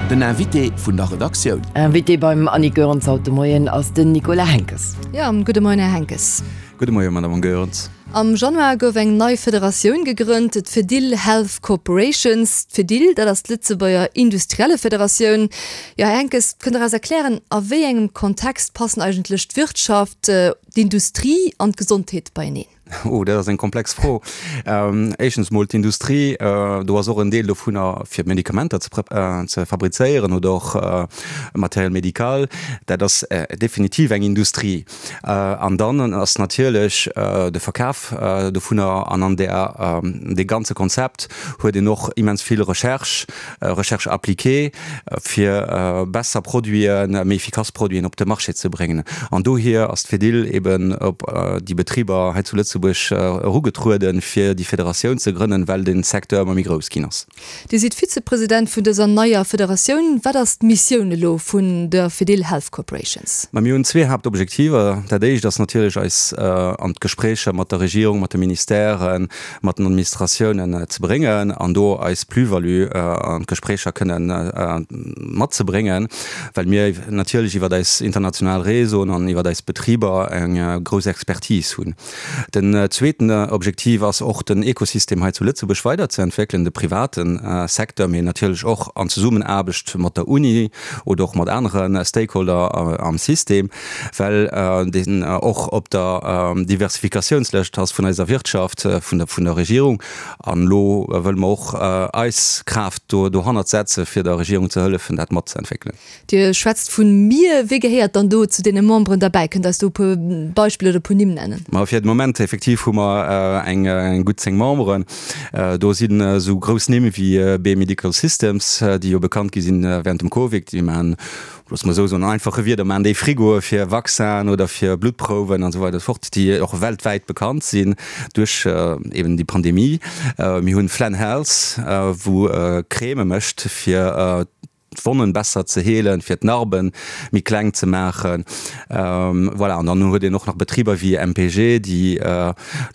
Den Invité vun der Redaktioun. Invité beim Annick Goerens haut de Moien ass den Nicolas Henckes. Jo, gudde Moien, Här Henckes. Gudde Moien, Madame Goerens. Am Januar gouf eng nei Federatioun gegrënnt, d'Fedil Health Corporations. D'Fedil, dat ass d'Lëtzebuerger Industriellefederatioun. Jo, Här Henckes, kënnt Der eis erklären, a wéi engem Kontext passen eigentlech d'Wirtschaft, d'Industrie an d'Gesondheet beieneen? Oh, dat ass eng komplex Fro. Éischtens emol d'Industrie, do ass och en Deel dovunner fir Medikamenter ze fabrizéieren oder och Matériel médical. Dat ass definitiv eng Industrie. An dann ass natierlech de Verkaf dovunner an an där dee ganze Konzept huet een och immens vill Recherche, Recherche appliquée, fir besser Produiten, méi efficace Produiten op de Marché ze bréngen. An dohier ass d'Fedil eben op déi Betriber hei zu Lëtzebuerg erugetrueden, fir déi Federatioun ze grënnen, well de Secteur ëmmer méi grouss ginn ass. Dir sidd Vizepresident vun dëser neier Federatioun. Wat ass d'Missioun elo vun der Fedil Health Corporations? Ma mir hunn zwee Haaptobjektiver. Dat éischt ass natierlech eis an d'Gespréicher mat der Regierung, mat de Ministèren, mat den Administratiounen ze bréngen an do eis Plus-value an d'Gespréicher kënnen matzebréngen, well mir natierlech iwwer eis international Réseauen an iwwer eis Betriber eng grouss Expertise hunn. Den zweeten Objektiv ass och, den Ekosystem hei zu Lëtzebuerg weiderzeentwéckelen, de private Secteur, mee natierlech och an Zesummenaarbecht mat der Uni oder och mat anere Stakeholder am System, well deen och op der Diversifikatiounslëscht ass vun eiser Wirtschaft, vun der Regierung. An elo wëlle mer och eis Kraaft dohannert setze fir der Regierung ze hëllefen, dat matzeentwéckelen. Dir schwätzt vun mir. Wie gehéiert dann do zu deene Memberen derbäi? Kënnt Der eis do e puer Beispiller oder e puer Nimm nennen? Ma fir de Moment effektiv hu mer eng gutt 10 Memberen. Do sinn esou grouss Nimm wéi BE Medical Systems, déi jo bekannt gi sinn während dem Covid. Déi maachen, loosse mer esou soen, an einfache Wierder, maachen déi Frigoe fir Vaccinen oder fir Bluttprouwen an esou weider esou fort, déi och weltwäit bekannt sinn duerch eben déi Pandemie. Mir hunn Flann Health, wou Crèmë mécht fir d'Wonnen besser ze heelen, fir d'Narben méi kleng ze maachen. Voilà, an dann huet een och nach Betriber wéi MPG, déi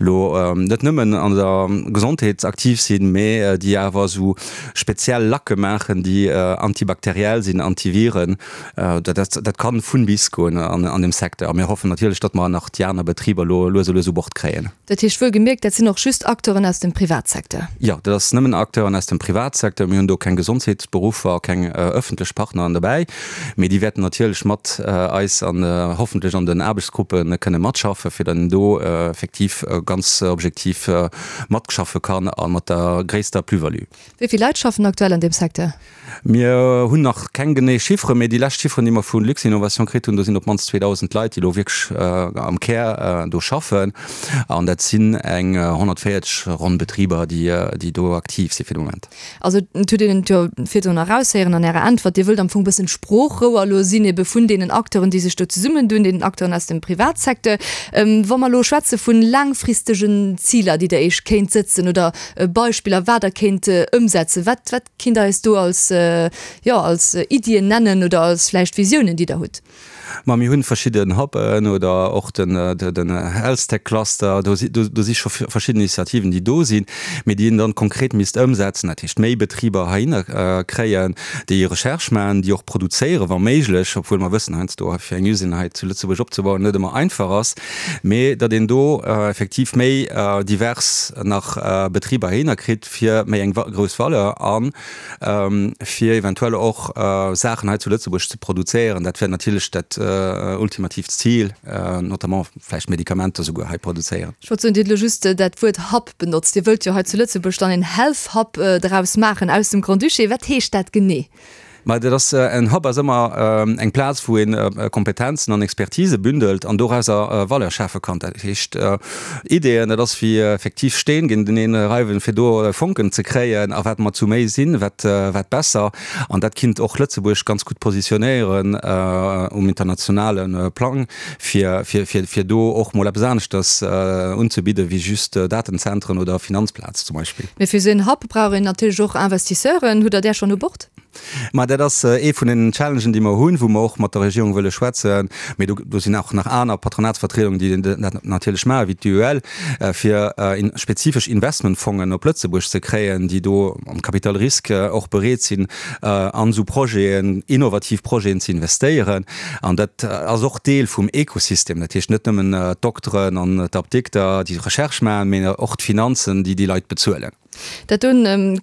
elo net nëmmen an der Gesondheet aktiv sinn, mee déi awer esou speziell Lacke maachen, déi antibakteriell sinn, Antiviren. Dat kann vun bis goen an deem Secteur. A mir hoffen natierlech, datt mer nach déi aner Betriber elo lues a lues u Bord kréien. Dat heescht wuel gemierkt, dat sinn och just Acteuren aus dem Privatsecteur? Jo, dat ass nëmmen Acteuren aus dem Privatsecteur. Mir hunn do keng Gesondheetsberuffer, keng ëffentlech Partneren dobäi, mee déi wäerten natierlech mat eis an hoffentlech an den Aarbechtsgruppe kënne matschaffen, fir dann do effektiv ganz objektiv matschaffe kann a mat der gréisster Plus-value. Wéi vill Leit schaffen aktuell an deem Secteur? Mir hunn nach keng genee Chifferen, mee déi lescht Chifferen, déi mer vu Luxinnovation kritt hunn, do sinn op d'mannst 2.000 Leit, déi elo wierklech am Kär do schaffen. An dat sinn eng 140 ronn Betriber, déi do aktiv si fir de Moment. Also et huet een et jo virdrun eraushéieren an Ärer Äntwert, Dir wëllt am Fong e bëssen d'Sproochrouer elo sinn ebe vun deenen Acteuren, déi sech do zesummendun, deenen Acteuren aus dem Privatsecteur. Wa mer elo schwätze vu laangfristegen Ziler, déi Der Iech kéint sëtzen oder Beispiller, wat Der kéint ëmsetzen, wat, wat Kinnt der eis do als, jo, als Iddien nennen oder als vläicht Visiounen, déi der hutt? Ma mir hunn verschidden Hub'en oder och den, den Healthtech Cluster. Do si, do si scho verschidden Initiativen, déi do sinn, mee déi een dann konkret misst ëmsetzen. Dat heescht, méi Betriber heihinner kréien, déi Recherche maachen, déi och produzéieren, wa méiglech, obwuel mer wëssen heiansdo, fir eng Usine hei zu Lëtzebuerg opzebauen, net ëmmer einfach ass, mee datt een do effektiv méi divers nach Betriber heihinner kritt, fir méi eng grouss Valeur a fir eventuell och Saachen hei zu Lëtzebuerg ze produzéieren. Dat wär natierlech dat ultimatiivt Zil, notamment vläicht Medikamenter souguer hei produzéieren. Ech wollt soen, Dir hutt elo just dat Wuert Hub benotzt. Dir wëllt jo hei zu Lëtzebuerg dann een Health Hub draus maachen aus dem Grand-Duché. Wat heescht dat genee? Ma dat ass, en Hub ass ëmmer eng Plaz, wou ee Kompetenzen an Expertise bündelt an dorauser Valeur schafe kann. Dat heescht, Ideeën, dat ass wéi effektiv Steen géinteneen reiwen, fir do Fonken ze kréien. A wat mer zu méi sinn, wat wat besser. An dat kinnt och Lëtzebuerg ganz gutt positionéieren um internationale Plang, fir fir fir fir do och mol eppes aneschters unzebidde wéi just Datenzentren oder Finanzplaz zum Beispill. Mee fir esou en Hub brauch een natierlech och Investisseuren. Hutt Der där schonn u Bord? Ma dat ass ee vun den Challengen, déi mer hunn, wou mer och mat der Regierung wëlle schwätzen. Mee do, do sinn och nach aner Patronatsvertriedungen, déi dat natierlech maachen, wéi d'UEL, fir spezifesch Investmentfongen op Lëtzebuerg ze kréien, déi do am Capital risque och bereet sinn, an esou Projeten, innovativ Projeten ze investéieren. An dat ass och Deel vum Ekosystem. Dat heescht net nëmmen d'Dokteren an d'Apdikter, déi Recherche maachen, mee och d'Finanzen, déi déi Leit bezuelen. Dat do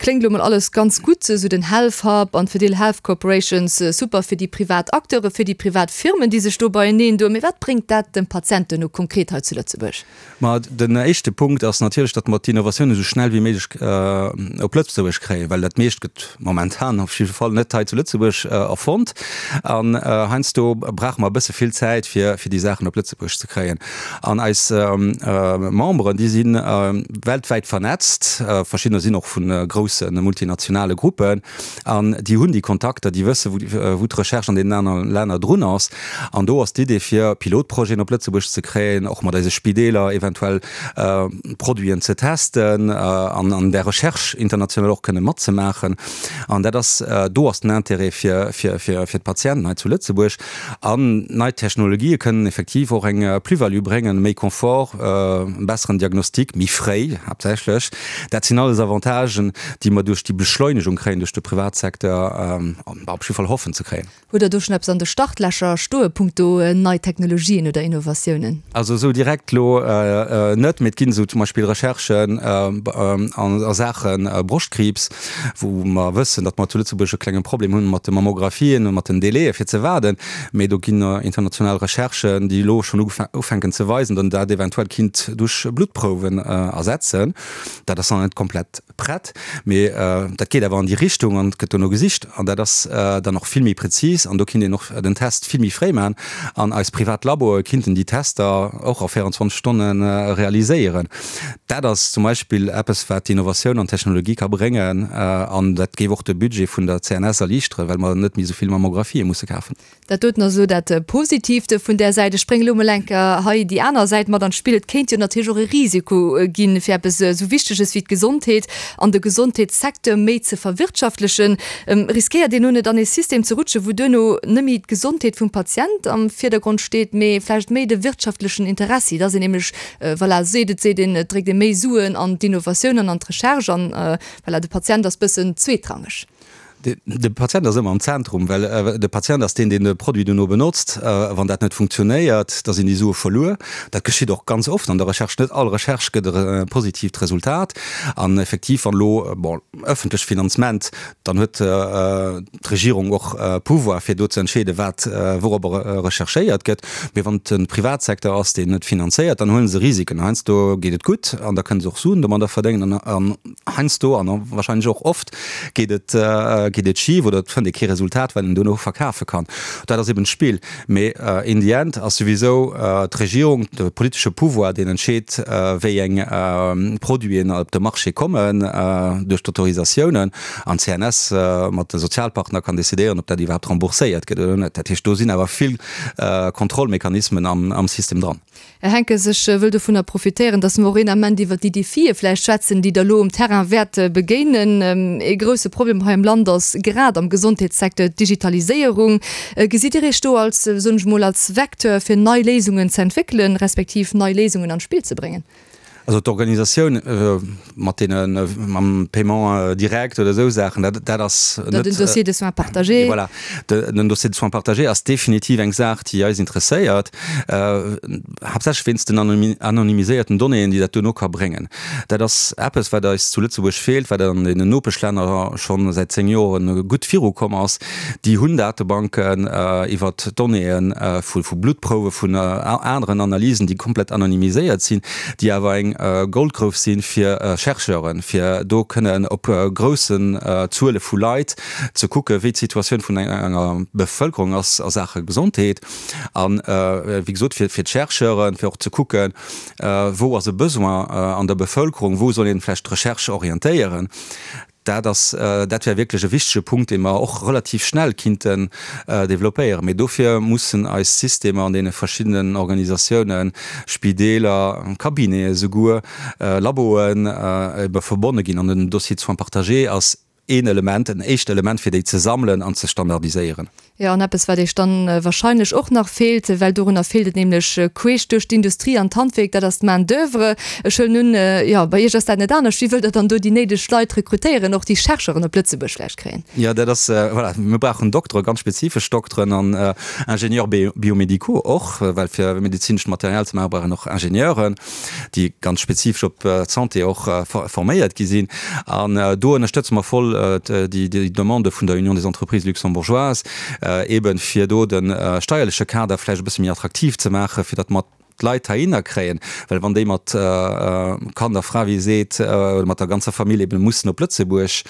kléngt elo mol alles ganz gutt, esou den Health Hub an d'Fedil Health Corporations, super fir déi privat Acteuren, fir déi privat Firmen, déi sech do beieneen doen. Mee wat bréngt dat dem Patient duerno konkret hei zu Lëtzebuerg? Ma den éischte Punkt ass natierlech, datt mer d'Innovatioun esou schnell wéi méiglech op Lëtzebuerg kréien, well dat meescht gëtt momentan op jidde Fall net hei zu Lëtzebuerg erfonnt. An heiansdo brauche mer e bësse vill Zäit, fir déi Saachen op Lëtzebuerg ze kréien. An eis Memberen, déi si weltwäit vernetzt, verschiddener sinn och vu grousse multinationale Gruppen, an déi hunn déi Kontakter, déi wësse wou d'Recherche an deenen anere Länner drun ass. An do ass d'Idee fir Pilotprojeten op Lëtzebuerg ze kréien, och mat eise Spideeler eventuell Produiten ze testen an an där Recherche international och kënne matzemaachen. An dat ass, do ass den Intérêt fir d'Patienten hei zu Lëtzebuerg. An nei Technologië kënnen effektiv och eng Plus-value bréngen, méi Confort, e besseren Diagnostic, méi fréi haaptsächlech. Dat sinn alles Avantagen, déi mer duerch déi Beschleunegung kréien, duerch de Privatsecteur, op jidde Fall hoffen ze kréien. Hutt Der do schonn eppes an de Startlächer stoe punkto nei Technologien oder Innovatiounen? Also esou direkt elo net, mee et ginn esou zum Beispill Recherchen a Saache Broschtkriibs, wou mer wëssen, datt mer zu Lëtzebuerg e klenge Problem hunn mat de Mammographien a mat den Délaië fir ze waarden. Mee do ginn international Recherchen, déi elo schonn ufänken ze weisen, datt een dat eventuell kinnt duerch Bluttprouwen ersetzen. Dat ass nach net komplett prett, mee dat geet awer an déi Richtung an et gëtt dono gesicht an dat ass dann och vill méi prezis an do kinnt een och den Test vill méi fréi maachen an eis privat Laboe kinnten déi Tester och a 24 Stonne realiséieren. Dat ass zum Beispill eppes, wat d'Innovatioun an d'Technologie ka bréngen an dat géif och de Budget vun der CNS erliichteren, well mer net méi esou vill Mammographie musse kafen. Dat doten ass elo dat Positiivt vun där Säit. Ech bréngen elo mol eng Kéier hei déi aner Säit mat an d'Spill. Et kéint jo natierlech och e Risiko ginn, fir eppes esou Wichteges wéi d'Gesondheet an de Gesondheetssecteur méi ze verwirtschaftlechen. Riskéiert een elo net an ee System ze rutschen, wou duerno net méi d'Gesondheet vum Patient am Virdergrond steet, mee vläicht méi de wirtschaftlechen Interessi, dass een nämlech Voilà, seet et seet een, et dréckt ee méi Suen an d'Innovatioun an an d'Recherche an voilà, de Patient ass bëssen zweetrangeg. De Patient ass ëmmer am Zentrum, well de Patient ass deen, deen de Produit duerno benotzt. Wann dat net funktionéiert, da sinn déi Sue verluer. Dat geschitt och ganz oft an der Recherche. Net all Recherche gëtt e positiivt Resultat. An effektiv, wann elo, bon, ëffentlecht Finanzement, dann huet d'Regierung och Pouvoir fir do ze entscheeden, wat wouropper recherchéiert gëtt. Mee wann et de Privatsecteur ass, deen et finanzéiert, dann huele se Risiken. Heiansdo geet et gutt an da kënne se och Suen domadder verdéngen an heiansdo an wahrscheinlech och oft geet et geet et schif oder et fënnt ee kee Resultat, wat een duerno verkafe kann. Dat ass eben d'Spill. Mee in the end ass souwisou d'Regierung, de politesche Pouvoir, deen entscheet, wéi eng Produiten op de Marché kommen duerch d'Autorisatiounen. An d'CNS mat de Sozialpartner kann decidéieren, ob dat iwwerhaapt rembourséiert gëtt oder net. Dat heescht, do sinn awer vill Kontrollmechanismen am System dran. Här Henckes, ech wëll dovunner profitéieren, dass mer och een Ament iwwert déi Defie vläicht schwätzen, déi Der elo um Terrain wäert begéinen. Ee grouse Problem hei am Land ass grad am Gesondheetssecteur d'Digitaliséierung. Gesitt Dir Iech do als, soen ech emol, als Vecteur, fir nei Léisungen ze entwéckelen, respektiv nei Léisungen an d'Spill ze bréngen? Also d'Organisatioun mat deene mam Paiement direct oder esou Saachen, dat dat ass net. Den Dossier de soins partagé. Voilà, den Dossier de soins partagé ass definitiv eng Saach, déi eis interesséiert, haaptsächlech wéinst den anonymiséierten Donnéeën, déi dat duerno ka bréngen. Dat ass eppes, wat eis zu Lëtzebuerg feelt, wat an deenen Nopeschlänner schonn säit 10 Joren gutt virukomm ass. Déi hunn Datebanken iwwert Donnéeë vu Bluttprouwe, vun aneren Analysen, déi komplett anonymiséiert sinn, déi awer eng Goldgrouf si fir Chercheuren, fir do kënnen op groussen Zuele vu Leit ze kucke wéi d'Situatioun vun enger Bevëlkerung ass a Saache Gesondheet. An, wéi gesot, fir d'Chercheuren, fir och ze kucken, wou ass e Besoin an der Bevëlkerung, wou soll een vläicht d'Recherche orientéieren. Dat ass, dat wär wierklech e wichtege Punkt, dee mer och relativ schnell kinnten développéieren. Mee dofir mussen eis Systemer an deene verschiddenen Organisatiounen, Spideeler, Cabinete souguer, Laboen, ebe verbonne ginn. An den Dossier de soins partagé ass. een Element, en éischt Element, fir déi ze sammelen an ze standardiséieren. Jo, an eppes, wat Iech dann wahrscheinlech och nach feelt, well dorunner feelt et nämlech queesch duerch d'Industrie an d'Handwierk, dat ass d'Main d'oeuvre. Ech huelen un, jo, bei Iech ass dat net anescht. Wéi wëllt Der dann do déi néideg Leit rekrutéieren, och déi Chercheuren op Lëtzebuerg vläicht kréien? Jo, dat ass, voilà, mir brauchen Dokteren, ganz spezifesch Dokteren an Ingénieurs biomédicaux och, well fir medezinescht Material ze maachen, brauch een och Ingenieuren. déi ganz spezifesch op d'Santé och forméiert gi sinn. An do ënnerstëtze mer voll déi Demande vun der Union des entreprises luxembourgeoises, eeben fir do de steierleche Kader vläicht e bësse méi attraktiv ze maachen, fir datt mer d'Leit heihinner kréien. Well wann déi mat Kand a Fra, wéi ee seet, oder mat der ganzer Famill eeben mussen op Lëtzebuerg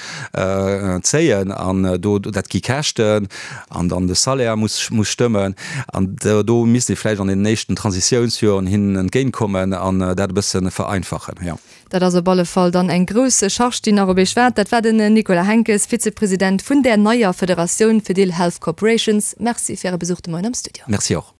zéien an do, dat gi Käschten, An dann de Salaire muss muss stëmmen. An do misst ee vläicht an deenen éischten Transitiounsjoren hinnen entgéintkommen an dat e bësse vereinfachen, jo. Dat ass op alle Fall dann eng grouss Charge, déi nach op Iech waart. Dat war den Nicolas Henckes, Vizepresident vun där neier Federatioun Fedil Health Corporations. Merci fir Äre Besuch de Moien am Studio. Merci och.